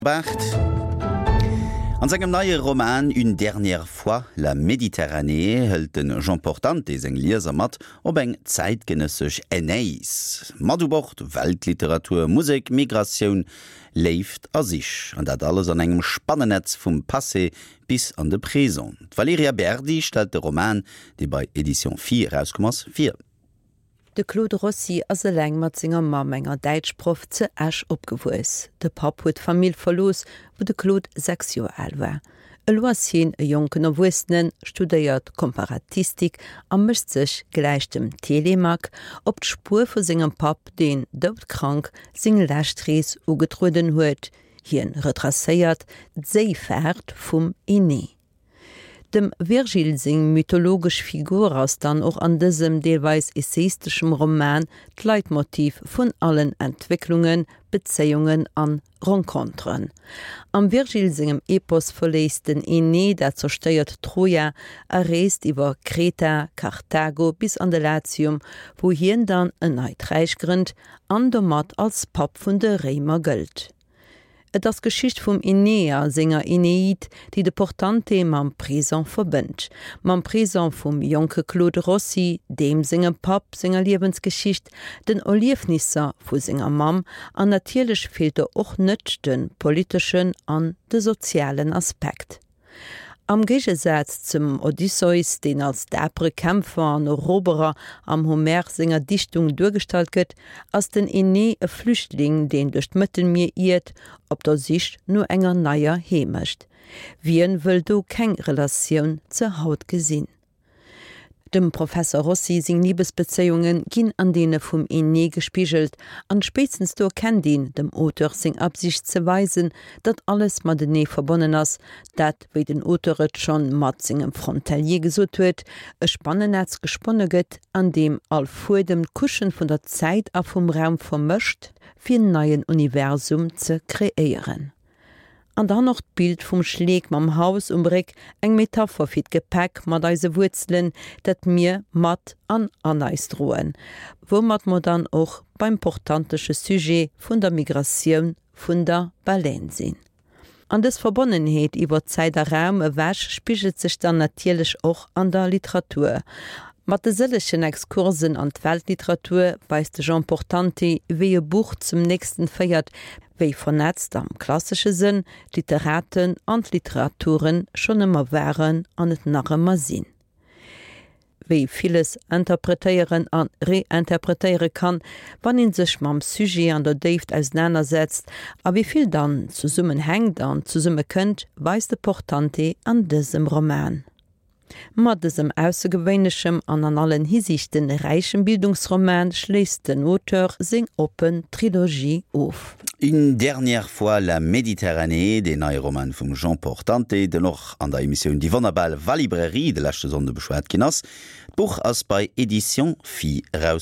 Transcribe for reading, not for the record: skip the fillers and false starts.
Barth. An sengem neie Roman Une dernière fois la Méditerranée hëlt de Jean Portante seng Lieser mat op eng zäitgenëssesch Aeneis. Mat u Bord, Weltliteratur, Musek, Migratioun, Léift a Sich. An dat alles an engem Spannennetz vum Passé bis an de Présent. D'Valerija Berdi stellt de Roman, dee bei Editions Phi erauskomm ass, vir. De Claude Rossi ass eleng mat senger Mamm, enger Däitschproff, ze Esch opgewuess. De Papp huet d'Famill verlooss, wou de Claude 6 Joer al war. Elo ass hien e jonken Erwuessenen, studéiert Komparatistik a mécht sech, gläich dem Telemaque, op d'Spuer vu sengem Papp, deen, doudkrank, seng lescht Rees ugetrueden huet. Hien retracéiert d'Séifaart vum Enée. Dem Virgil seng mythologesch Figur ass dann och an dësem deelweis essaisteschem Roman d'Leitmotiv vun allen Entwécklungen, Bezéiungen an Renconteren. Am Virgil sengem Epos verléisst den Enée dat zerstéiert Troja a reest iwwer Kreta, Karthago bis an de Latium, wou hien dann en neit Räich grënnt an domat als Papp vun de Réimer gëllt. Et ass d'Geschicht vum Enée a senger Eneid, déi de Portante mam Présent verbënnt. Mam Présent vum jonke Claude Rossi, deem sengem Papp senger Liewensgeschicht, den Erliefnisser vu senger Mamm an natierlech feelt do och net de politeschen an de sozialen Aspekt. Am Géigesaz zum Odysseus, deen als dapere Kämpfer an Eroberer am Homer senger Dichtung duergestallt gëtt, ass den Enée e Flüchtling, deen duerch d'Mëttelmier iert, op der Sich no enger neier Heemecht. Wien wëll do keng Relatioun ze haut gesinn? Dem Professer Rossi seng Libesbezéiunge ginn an deene vum Enée gespigelt, an spéitstens do erkennt een dem Auteur seng Absicht ze weisen, datt alles matenee verbonnen ass, dat, wéi den Auteur et schonn mat sengem Frontalier gesot huet, e Spannennetz gesponne gëtt, an deem all Fuedem d'Couchen vun der Zäit a vum Raum vermëscht, fir en neien Universum ze kreéieren. An dann och d'Bild vum Schleek mam Haus um Réck, eng Metapher fir d'Gepäck mat eise Wuerzelen, dat mir mat an an eis droen. Woumat mer dann och beim portantesche Sujet vun der Migratioun vun der Baleine sinn. An dës Verbonnenheet iwwer Zäit a Raum ewech spigelt sech dann natierlech och an der Literatur. Mat de sëllegen Exkursen an d'Weltliteratur weist de Jean Portante, wéi e Buch zum nächsten féiert, wéi vernetzt am klassesche Sënn d'Literaten an d'Literaturen schonn ëmmer waren an et nach ëmmer sinn. Wéi villes interpretéieren a reinterpretéiere kann, wann ee sech mam Sujet an der Déift ausenanersetzt, a wéi vill dann zesummenhänkt an zesummekënnt, weist de Portante an dësem Roman. Mat dësem aussergewéinlechem an an allen Hisiichten räichem Bildungsroman schléisst den Auteur seng oppen Trilogie of. Une dernière fois la Méditerranée, deen neie Roman vum Jean Portante, den och an der Emissioun Déi wonnerbar Valibrairie de leschte Sonnde beschwat ginn ass. D'Buch ass bei Editions Phi erauskomm.